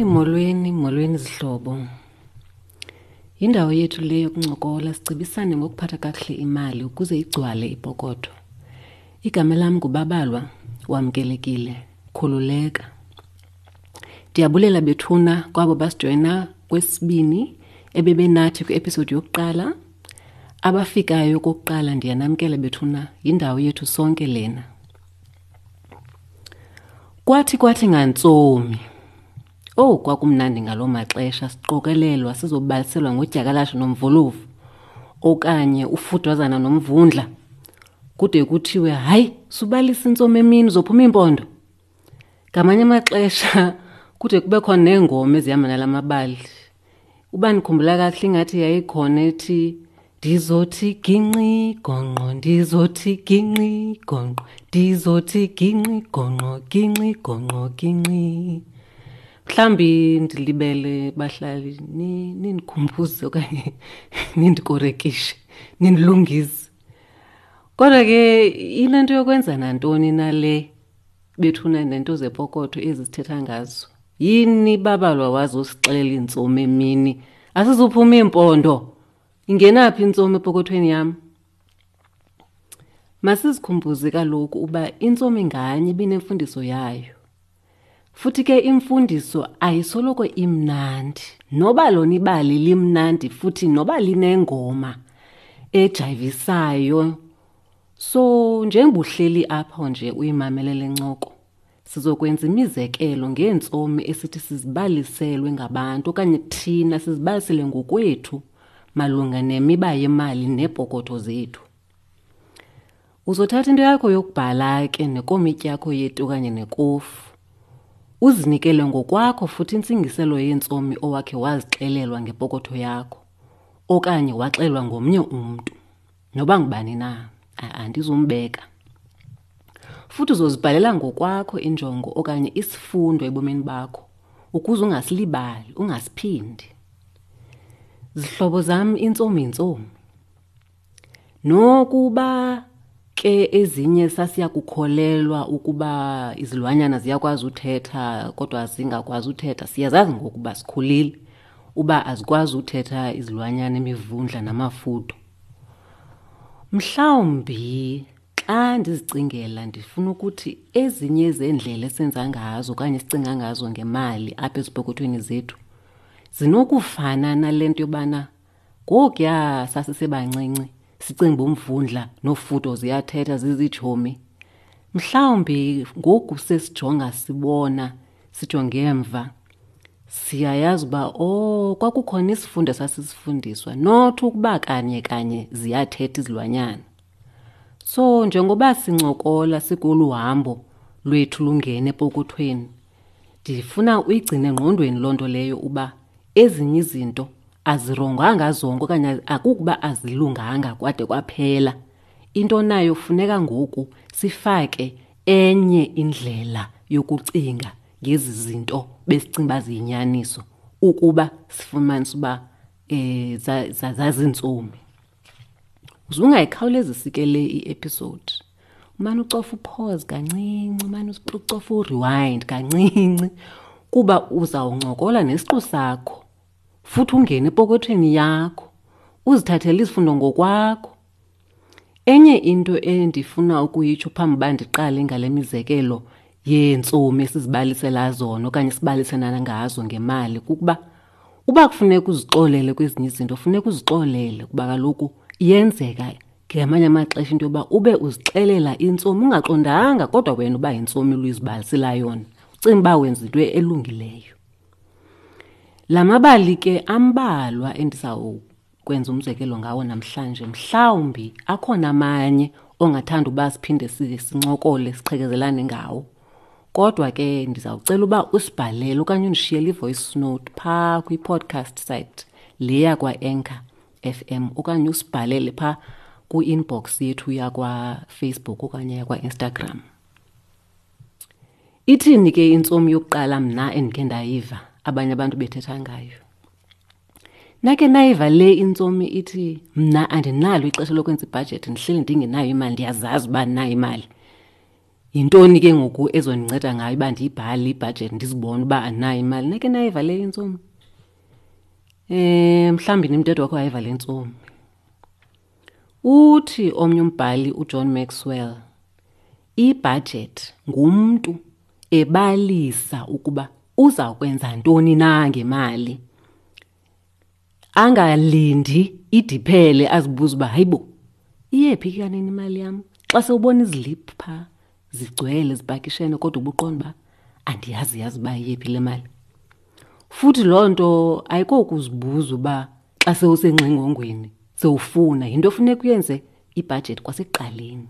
Molweni, molweni zihlobo. Yindawo yethu le yokuncokola sicebisane ngokuphatha kakuhle imali ukuze igcwale ipokotho. Igama lam nguBabalwa, wamkelekile, khululeka. Ndiyabulela bethuna kwabo basijoyina kwesibini ebebenathi kwi-episode yokuqala. Abafikayo kokuqala ndiyanamkela bethuna, yindawo yethu sonke lena. Kwathi kwathi ngantsomi. Owu kwakumnandi ngaloo maxesha siqokelelwa sizobaliselwa ngodyakalashe nomvolovu okanye ufudwazana nomvundla kude kuthiwe hayi subalisa intsomi emini uzophuma iimpondo. Ngamanye amaxesha kude kube khona neengoma ezihamba nala mabali. Uba ndikhumbula kakuhle ingathi yayikhona ethi ndizothi ginqi gonqo ndizothi ginqi gonqo ndizothi ginqi gonqo ginqi gonqo ginqi. Mhlawumbi ndilibele bahlali nindikhumbuze okanye nindikorekishe nindilungise. Kodwa ke inento yokwenza nantoni na le bethuna nento zepokotho ezi sithetha ngazo yini babalwa wazosixelela iintsomi emini asizuphuma iimpondo ingenaphi intsomi epokothweni yam masizikhumbuze kaloku uba intsomi nganye ibinemfundiso yayo futhi ke imfundiso ayisoloko imnandi noba lona ibali limnandi futhi noba linengoma ejayivisayo So njengoba uhleli apho nje uyimamele le ncoko, sizokwenza imizekelo ngeentsomi esithi sizibaliselwe ngabantu okanye thina sizibalisele ngokwethu malunga nemiba yemali neepokotho zethu. Uzothatha into yakho yokubhala ke nekomityi yakho yeti okanye nekofu. Uzinikele ngokwakho futhi intsingiselo yeentsomi owakhe wazixelelwa ngepokotho yakho okanye waxelwa ngomnye umntu. Noba ngubani na, andizumbeka. Futhi uzozibhalela ngokwakho injongo okanye isifundo ebomini bakho ukuze ungasilibali, ungasiphindi. Zihlobo zam, intsomi yintsomi. Nokuba ke ezinye sasiya kukholelwa ukuba izilwanyana ziyakwazi uthetha kodwa zingakwazi uthetha, siyazazi ngokuba sikhulile uba azikwazi uthetha izilwanyana, imivundla namafudo. Mhlawumbi xa ndizicingela ndifuna ukuthi ezinye zeendlela esenza ngazo okanye esicinga ngazo ngemali apha ezipokothweni zethu zinokufana nale nto yobana ngokuya sasisebancinci sicinga uba umvundla nofudo ziyathetha zizitshomi. Mhlawumbi ngoku sesijonga sibona sijonge emva siyayazi uba oh kwakukhona isifundo esasisifundiswa not ukuba kanye kanye ziyathetha izilwanyana. So njengoba sincokola sikolu hambo lwethu lungena epokothweni, ndifuna uyigcine engqondweni loo nto leyo uba ezinye izinto azironganga zonke okanye akukuba azilunganga kwade kwaphela. Into nayo funeka ngoku sifake enye indlela yokucinga ngezi zinto besicinga uba ziyinyaniso ukuba sifumanise uba um zazintsomi. Uze ungayikhawulezisi ke le i-episode. Umane ucofa upause kancinci, umane ucofa urewind kancinci kuba uzawuncokola nesiqu sakho futhi ungene epokothweni yakho uzithathele izifundo ngokwakho. Enye into endifuna ukuyitsho phambi uba ndiqale ngale mizekelo yeentsomi esizibalisela zona okanye sibaliselana ngazo ngemali kukuba uba kufuneka uzixolele kwezinye izinto funeka uzixolele kuba kaloku iyenzeka ngamanye amaxesha into yoba ube uzixelela intsomi ungaqondanga kodwa wena uba yintsomi luyizibalisela yona ucinga uba wenza into elungileyo. La mabali ke ambalwa endizawukwenza umzekelo ngawo namhlanje. Mhlawumbi akhona amanye ongathanda uba siphinde sincokole siqhekezelane ngawo. Kodwa ke ndizawucela uba usibhalele okanye undishiyele i-voice note phaa kwi-podcast site le yakwa-Anchor FM okanye usibhalele phaa kwi-inbox yethu yakwaFacebook okanye yakwaInstagram. Ithini ke intsomi yokuqala mna endikhe ndayiva abanye abantu bethetha ngayo? Nake nayiva le intsomi ithi mna andinalo ixesha lokwenza ibhajethi, ndihleli ndingenayo imali, ndiyazazi uba ndinayo imali. Yintoni ke ngoku ezondinceda ngayo uba ndiyibhale ibhajethi ndizibone uba andinayo imali? Nake nayiva le intsomi? Mhlawumbi nimthetho wakho wayiva le ntsomi. Uthi omnye umbhali uJohn Maxwell, ibhajethi ngumntu ebalisa ukuba uza kwenza ntoni na ngemali. Angalindi idiphele azibuze uba hayibo iyephi ke kanene imali yam. Xa sewubona iziliphu phaa zigcwele zipakishene kodwa ubuqonda uba andiyazi yazi uba iyephi le mali. Futhi loo nto ayikokuzibuza uba xa sewusengxingongweni sewufuna, yinto efuneka uyenze ibhajethi kwasekuqaleni.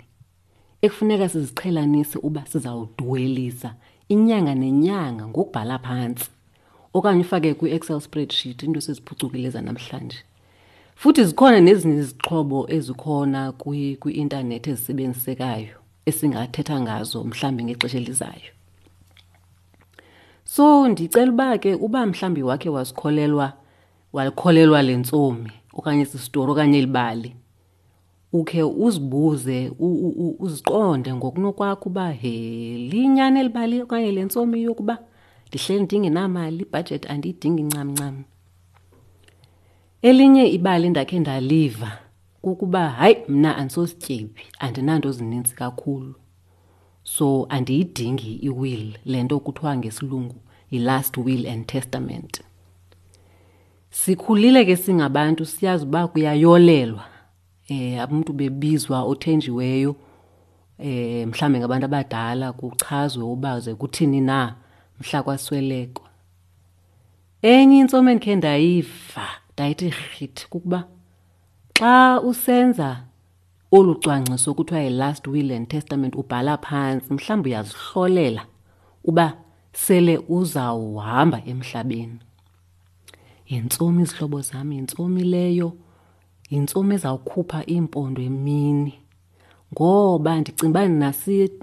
Ekufuneka siziqhelanise uba sizawudwelisa inyanga nenyanga ngokubhala phantsi okanye ufake kwi-Excel spreadsheet, into eseziphucukile zanamhlanje. Futhi zikhona nezinye izixhobo ezikhona kwi-intanethi ezisebenzisekayo esingathetha ngazo mhlawumbi ngexesha elizayo. So ndicela uba ke uba mhlawumbi wakhe wasikholelwa, walikholelwa le ntsomi okanye esi sitori okanye eli bali, ukhe uzibuze, uziqonde ngokunokwakho uba he, liyinyani eli bali okanye le ntsomi yokuba ndihleli ndingenamali, ibhajethi andiyidingi ncam ncam. Elinye ibali endakhe ndaliva kukuba hayi mna andisosityebi, andinanto zininzi kakhulu, so andiyidingi i-will, le nto kuthiwa ngesilungu yi-last will and testament. Sikhulile ke singabantu siyazi uba kuyayolelwa, abantu bebizwa othenjiweyo, mhlawumbi ngabantu abadala, kuchazwe uba ze kuthini na mhla kwaswelekwa. Enye intsomi endikhe ndayiva ndayithi rhithi kukuba xa usenza olu cwangciso kuthiwa yi-last will and testament ubhala phantsi, mhlawumbi uyazihlolela uba sele uzawuhamba emhlabeni. Yintsomi izihlobo zam, yintsomi leyo, yintsomi ezawukhupha iimpondo emini. Ngoba ndicinga uba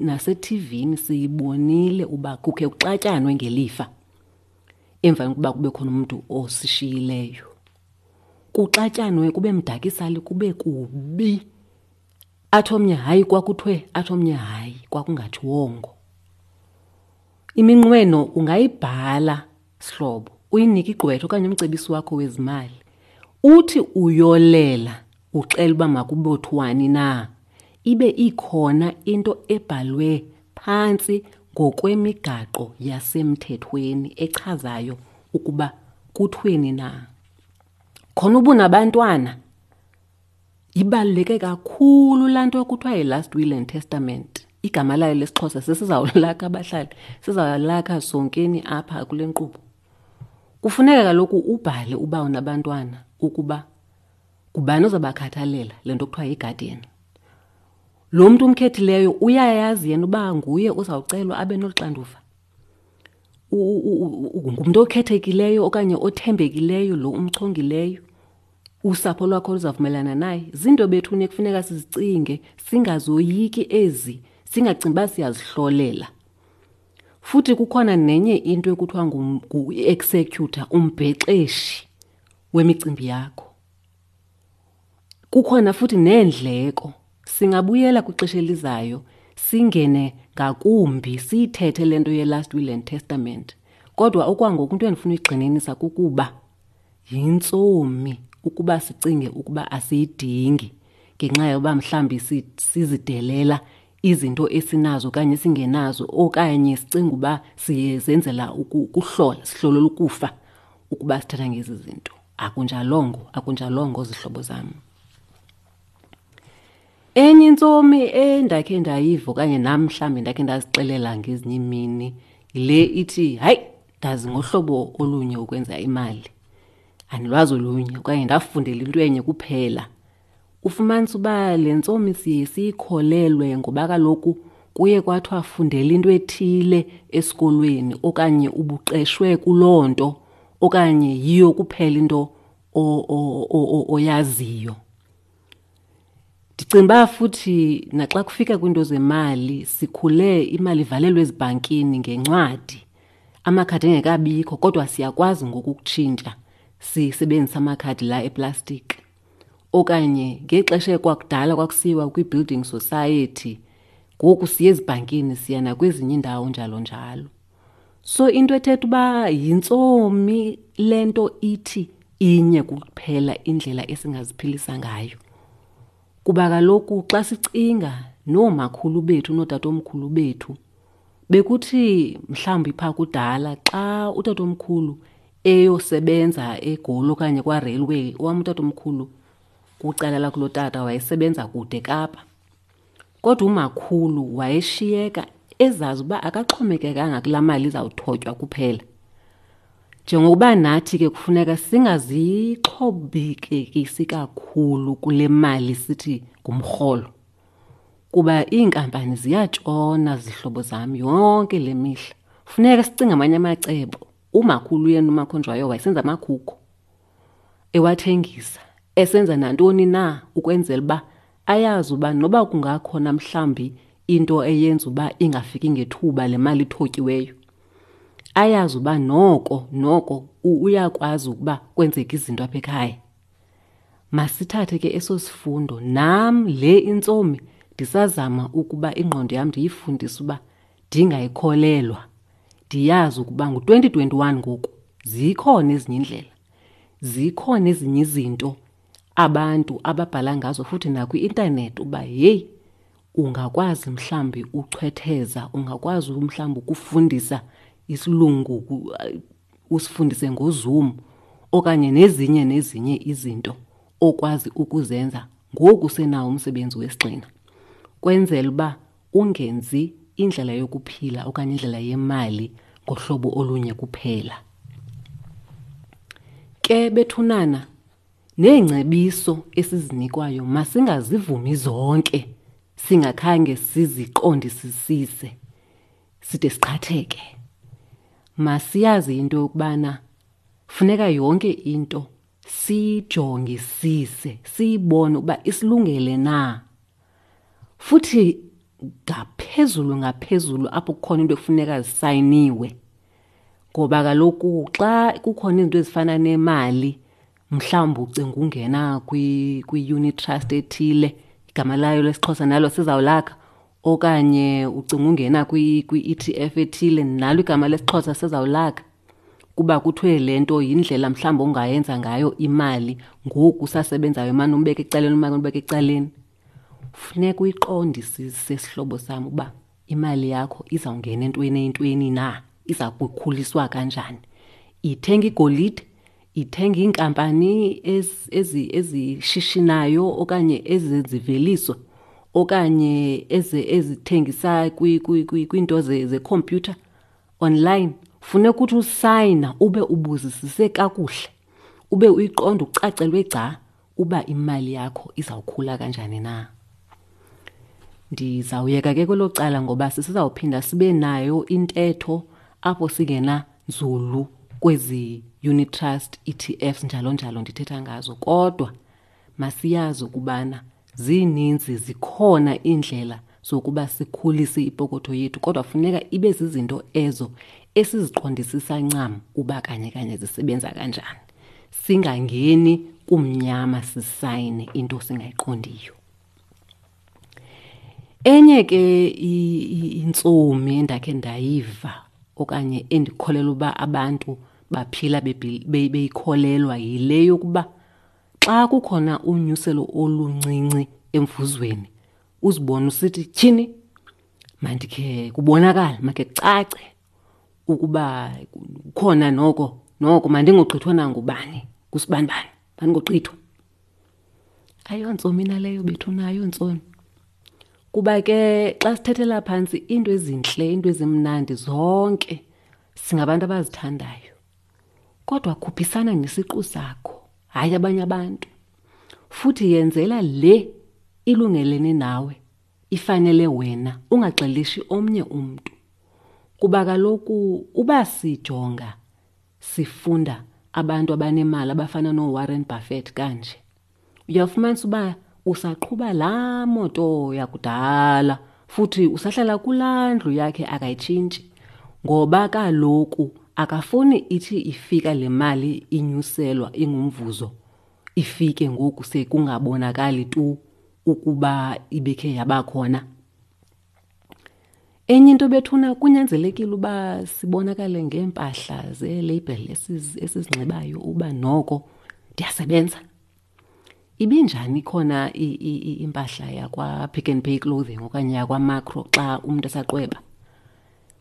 nasethivini siyibonile uba kukhe kuxatyanwe ngelifa emva kokuba kube khona umntu osishiyileyo. Kuxatyanwe kube mdakisali kube kubi. Athi omnye hayi kwakuthiwe, athi omnye hayi kwakungathiwongo. Iminqweno ungayibhala sihlobo, uyinike igqwetha okanye umcebisi wakho wezimali. Uthi uyolela uxela uba makubothwani na, ibe ikhona into ebhalwe phantsi ngokwemigaqo yasemthethweni echazayo ukuba kuthweni na. Khona ubunabantwana, ibaluleke kakhulu laa nto kuthiwa yi-last will and testament. Igama layo lesiXhosa sesizawulakha abahlali, sizawulakha sonkeni apha kule nkqubo. Kufuneka kaloku ubhale uba unabantwana ukuba ngubani ozabakhathalela, le nto kuthiwa yi-guardian. Lo mntu umkhethileyo uyayazi yena uba nguye ozawucelwa abe nolu xanduva. Ngumntu okhethekileyo okanye othembekileyo lo umchongileyo, usapho lwakho luzavumelana naye. Zinto bethuni ekufuneka sizicinge, singazoyiki ezi, singacingi uba siyazihlolela. Futhi kukhona nenye into ekuthiwa ngu-executor, umbhexeshi wemicimbi yakho. Kukhona futhi neendleko. Singabuyela kwixesha elizayo singene ngakumbi siyithethe le nto ye-last will and testament. Kodwa okwangoku into endifuna uyigxininisa kukuba yintsomi ukuba sicinge ukuba asiyidingi ngenxa yoba mhlawumbi sizidelela izinto esinazo okanye esingenazo, okanye sicinga uba siyezenzela ukuhlola, sihlolela ukufa ukuba sithetha ngezi zinto. Akunjalongo, akunjalongo zihlobo zam. Enye intsomi endakhe ndayiva okanye nam mhlawumbi ndakhe ndazixelela ngezinye iimini yile ithi, hayi, ndazi ngohlobo olunye ukwenza imali, andilwazi olunye okanye ndafundela into enye kuphela. Ufumanisa uba le ntsomi siye siyikholelwe ngoba kaloku kuye kwathiwa fundela into ethile esikolweni okanye ubuqeshwe kuloo nto okanye yiyo kuphela into oyaziyo. Ndicinga uba futhi naxa kufika kwiinto zemali, sikhule imali ivalelwe ezibhankini ngencwadi, amakhadi engekabikho, kodwa siyakwazi ngoku ukutshintsha sisebenzise amakhadi la eplastiki. Okanye ngexesha ekwakudala kwakusiyiwa kwi-building society, Ngoku siye ezibhankini, siya nakwezinye iindawo njalo njalo. So into ethetha uba yintsomi le nto ithi inye kuphela indlela esingaziphilisa ngayo. Kuba kaloku xa sicinga noomakhulu bethu nootatomkhulu bethu, bekuthi mhlawumbi phaa kudala xa utatomkhulu eyosebenza eGoli okanye kwaRailway, owam utatomkhulu kwicala lakulotata wayesebenza kude eKapa. Kodwa umakhulu wayeshiyeka ezazi uba akaxhomekekanga kulaa mali izawuthotywa kuphela. Njengokuba nathi ke kufuneka singazixhobekekisi kakhulu kule mali sithi ngumrholo, kuba iinkampani ziyatshona zihlobo zam yonke le mihla. Funeka sicinge amanye amacebo. Umakhulu yena uMakhonjwayo wayesenza amakhukho, ewathengisa, esenza nantoni na ukwenzela uba ayazi uba noba kungakhona mhlawumbi into eyenza uba ingafiki ngethuba le mali ithotyiweyo, ayazi uba noko noko uyakwazi ukuba kwenzeke izinto apha ekhaya. Masithathe ke eso sifundo. Nam le intsomi ndisazama ukuba ingqondo yam ndiyifundise uba ndingayikholelwa. Ndiyazi ukuba ngu-2021 ngoku, zikhona ezinye iindlela, zikhona ezinye izinto abantu ababhala ngazo futhi nakwi-intanethi uba yeyi ungakwazi mhlawumbi uchwetheza, ungakwazi mhlawumbi ukufundisa isilungu, usifundise ngoZoom okanye nezinye nezinye izinto okwazi ukuzenza ngoku usenawo umsebenzi wesigxina, kwenzela uba ungenzi indlela yokuphila okanye indlela yemali ngohlobo olunye kuphela. Ke bethunana, neengcebiso esizinikwayo masingazivumi zonke singakhange siziqondisisise side siqhatheke. Masiyazi into yokubana funeka yonke into siyijongisise, siyibone ukuba isilungele na. Futhi ngaphezulu ngaphezulu apho kukhona into ekufuneka zisayiniwe, ngoba kaloku xa kukhona izinto ezifana nemali, mhlawumbi ucinga ungena kwi-unit trust ethile, igama layo lesiXhosa nalo sizawulakha, okanye ucinga ungena kwi-E T F ethile, nalo igama lesiXhosa sizawulakha, kuba kuthiwe le nto yindlela mhlawumbi ongayenza ngayo imali ngoku usasebenzayo, umane umbeka ecaleni, umane umbeka ecaleni. Funeka uyiqondisise sihlobo sam uba imali yakho izawungena entweni eyintweni na, iza kukhuliswa kanjani. Ithenga igolide, ithenga iinkampani ezishishinayo okanye eziziveliso okanye ezithengisa kwiinto zekhompyutha online. Funeka uthi usayina ube ubuzisise kakuhle, ube uyiqonda ucacelwe gca uba imali yakho izawukhula kanjani na. Ndizawuyeka ke kwelo cala ngoba sisizawuphinda sibe nayo intetho apho singena nzulu kwezi unit trust, E T Fs njalo njalo ndithetha ngazo, kodwa masiyazi ukubana zininzi, zikhona iindlela zokuba sikhulise ipokotho yethu, kodwa funeka ibe zizinto ezo esiziqondisisa ncam uba kanye kanye zisebenza kanjani. Singangeni kumnyama sisayine into singayiqondiyo. Enye ke intsomi endakhe ndayiva okanye endikholelwa uba abantu baphila beyikholelwa yile yokuba xa kukhona unyuselo oluncinci emvuzweni, uzibone usithi tyhini, mandikhe kubonakale, makhe kucace ukuba kukhona noko, noko mandingogqithwa nangubani, kusibanibani, mandingogqithwa. Ayontsomi naleyo bethuna, ayontsomi. Kuba ke xa sithethela phantsi iinto ezintle, iinto ezimnandi zonke singabantu abazithandayo. Kodwa khuphisana nesiqu sakho, hayi abanye abantu. Futhi yenzela le ilungelene nawe, ifanele wena, ungaxelishi omnye umntu. Kuba kaloku uba sijonga sifunda abantu abanemali abafana nooWarren Buffett kanje, uyafumanisa uba usaqhuba laa moto yakudala futhi usahlala kulaa ndlu yakhe, akayitshintshi. Ngoba kaloku akafuni ithi ifika le mali inyuselwa ingumvuzo, ifike ngoku sekungabonakali tu ukuba ibikhe yabakhona. Enye into bethuna kunyanzelekile uba sibonakale ngeempahla zeelabel esizinxibayo uba noko ndiyasebenza. Ibinjani khona impahla yakwaPick n Pay Clothing okanye yakwaMakro xa umntu esaqweba?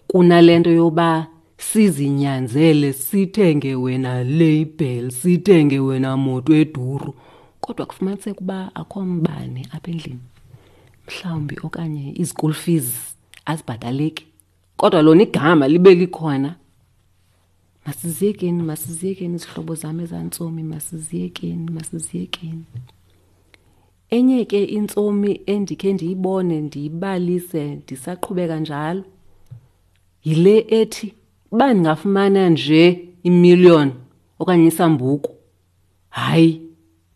Kunale nto yoba sizinyanzele sithenge wena label, sithenge wena moto eduru, kodwa kufumaniseke uba akho mbane apha endlini mhlawumbi okanye izikul fees azibhataleki, kodwa lona igama libe likhona. Masiziyekeni, masiziyekeni izihlobo zam ezantsomi, masiziyekeni, masiziyekeni. Enye ke intsomi endikhe ndiyibone ndiyibalise ndisaqhubeka njalo yile ethi uba ndingafumana nje imillion okanye isambuku, hayi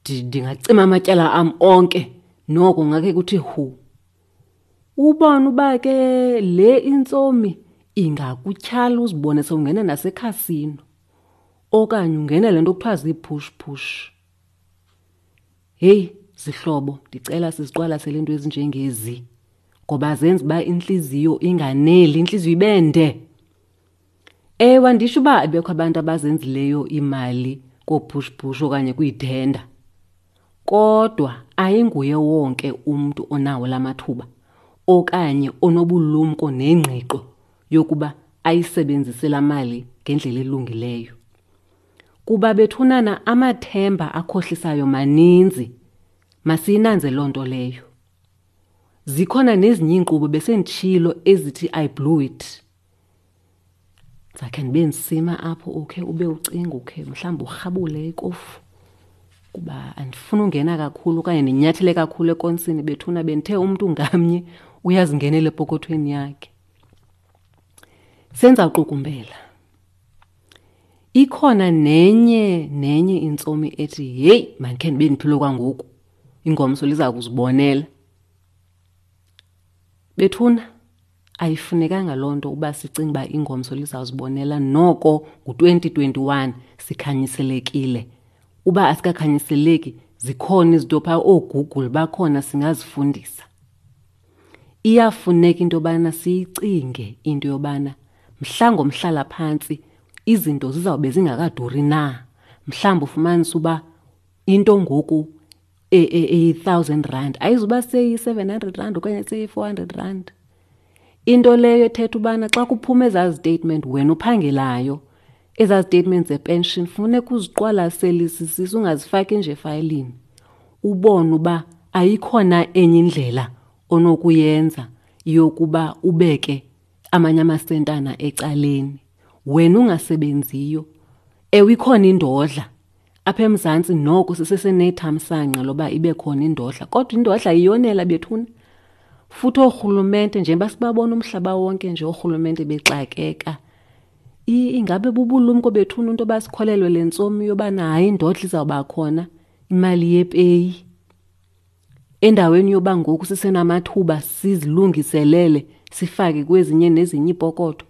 ndingacima amatyala am onke noko ngakhe kuthi hu. Ubone uba ke le intsomi ingakutyhala uzibone sewungena nasekhasino okanye ungena le nto kuthiwa zii-push push. Heyi zihlobo, ndicela siziqwalasele iinto ezinjengezi ngoba zenza uba intliziyo inganeli, intliziyo ibe nde. Ewe, anditsho uba abekho abantu abazenzileyo iimali koopush push okanye kwiithenda, kodwa ayinguye wonke umntu onawo la mathuba okanye onobulumko nengqiqo yokuba ayisebenzise laa mali ngendlela elungileyo. Kuba bethunana amathemba akhohlisayo maninzi, masiyinanze loo nto leyo. Zikhona nezinye iinkqubo besenditshilo ezithi I blew it. Ndizakhe ndibe ndisima apho ukhe ube ucinga ukhe mhlawumbi urhabule ikofu kuba andifuni ungena kakhulu okanye ndinyathele kakhulu ekonsini bethuna, bendithe umntu ngamnye uyazingenela epokothweni yakhe. Senza uqukumbela. Ikhona nenye nenye intsomi ethi heyi mandikhe ndibe ndiphile kwangoku, ingomso liza kuzibonela. Bethuna ayifunekanga loo nto uba sicinge uba ingomso lizawuzibonela, noko ngu-2021 sikhanyiselekile. Uba asikakhanyiseleki zikhona izinto phaa, ooGoogle bakhona singazifundisa. Iyafuneka into yobana siyicinge into yobana mhla ngomhlalaphantsi izinto zizawube zingakaduri na. Mhlawumbi ufumanise uba into ngoku eyi-thousand rand ayizuba seyi-700 rand okanye seyi-400 rand. Into leyo ethetha ubana xa kuphuma ezaa zitetimenti wena uphangelayo, ezaa zitetimenti zepension funeka uziqwalaselisisise, ungazifaki nje efayilini, ubone uba ayikhona enye indlela onokuyenza yokuba ubeke amanye amasentana ecaleni wena ungasebenziyo. Ewe, ikhona indodla apha eMzantsi, noko sisesenethamsanqa loba ibe khona indodla, kodwa indodla iyonela bethuna. Futhi oorhulumente, njengoba sibabona umhlaba wonke nje oorhulumente bexakeka, ingabe bubulumko bethuna into yoba sikholelwe le ntsomi yobana hayi indodla izawuba khona, imali yepeyi. Endaweni yoba ngoku sisenamathuba sizilungiselele sifake kwezinye nezinye iipokotho.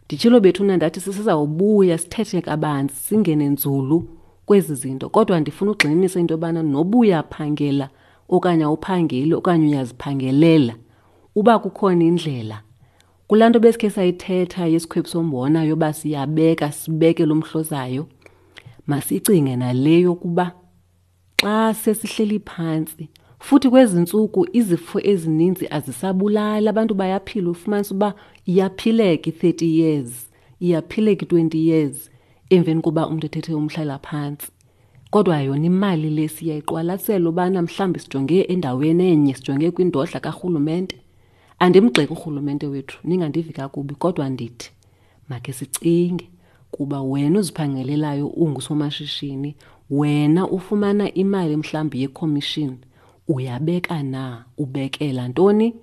Nditshilo bethuna ndathi sisizawubuya sithethe kabanzi singene nzulu kwezi zinto, kodwa ndifuna ugxininisa into yobana noba uyaphangela okanye awuphangeli okanye uyaziphangelela, uba kukhona indlela kulaa nto besikhe sayithetha yesikhwebu sombona yoba siyabeka sibeke lo mhlozayo, masicinge nale yokuba xa sesihleli phantsi futhi kwezi ntsuku izifo ezininzi azisabulali, abantu bayaphila. Ufumanisa uba iyaphileka i-30 years, iyaphileka i-20 years emveni koba umntu ethethe umhlalaphantsi. Kodwa yona imali le siyayiqwalasela ubana mhlawumbi sijonge endaweni enye, sijonge kwindodla karhulumente. Andimgxeki urhulumente wethu, ningandivi kakubi, kodwa ndithi makhe sicinge kuba wena uziphangelelayo ungusomashishini, wena ufumana imali mhlawumbi yekhomishini, uyabeka na, ubekela ntoni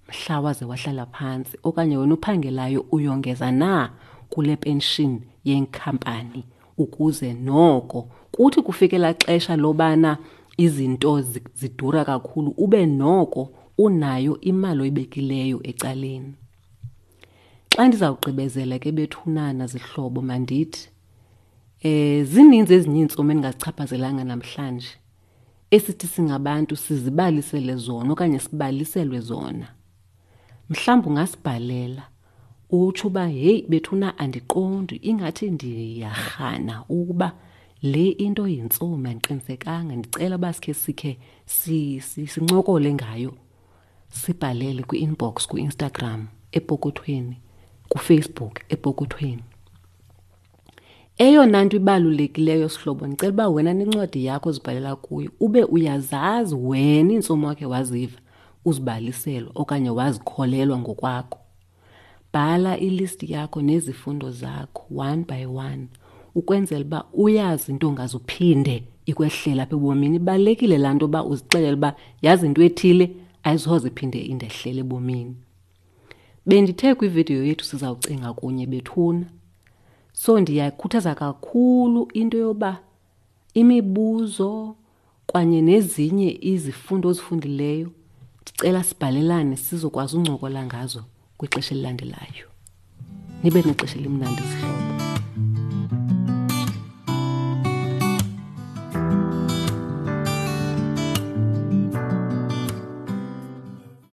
mhla waze wahlala phantsi, okanye wena uphangelayo uyongeza na kule pension yenkampani ukuze noko kuthi kufike laa xesha lobana izinto zidura kakhulu ube noko unayo imali oyibekileyo ecaleni. Xa ndizawugqibezela ke bethunana zihlobo, mandithi zininzi ezinye iintsomi endingazichaphazelanga namhlanje esithi singabantu sizibalisele zona okanye sibaliselwe zona. Mhlawumbi ungasibhalela utsho uba heyi bethuna andiqondi, ingathi ndiyarhana ukuba le into yintsomi, andiqinisekanga, ndicela uba sikhe sikhe sincokole ngayo. Sibhalele kwi-inbox kwi-Instagram epokothweni, kuFacebook epokothweni. Eyona nto ibalulekileyo sihlobo, ndicela uba wena nencwadi yakho ozibhalela kuyo ube uyazazi wena iintsomi wakhe waziva uzibaliselwa okanye wazikholelwa ngokwakho. Bhala ilisti yakho nezifundo zakho one by one ukwenzela uba uyazi into ongaze uphinde ikwehlela apha ebomini. Ibalulekile laa nto uba uzixelele uba yazi into ethile ayisoze iphinde indehlele ebomini. Bendithe kwividiyo yethu sizawucinga kunye bethuna. So ndiyakhuthaza kakhulu into yoba imibuzo kwanye nezinye izifundo ozifundileyo ndicela sibhalelane sizokwazi uncokola ngazo kwixesha elilandelayo. Nibe nexesha elimnandi zihlobo.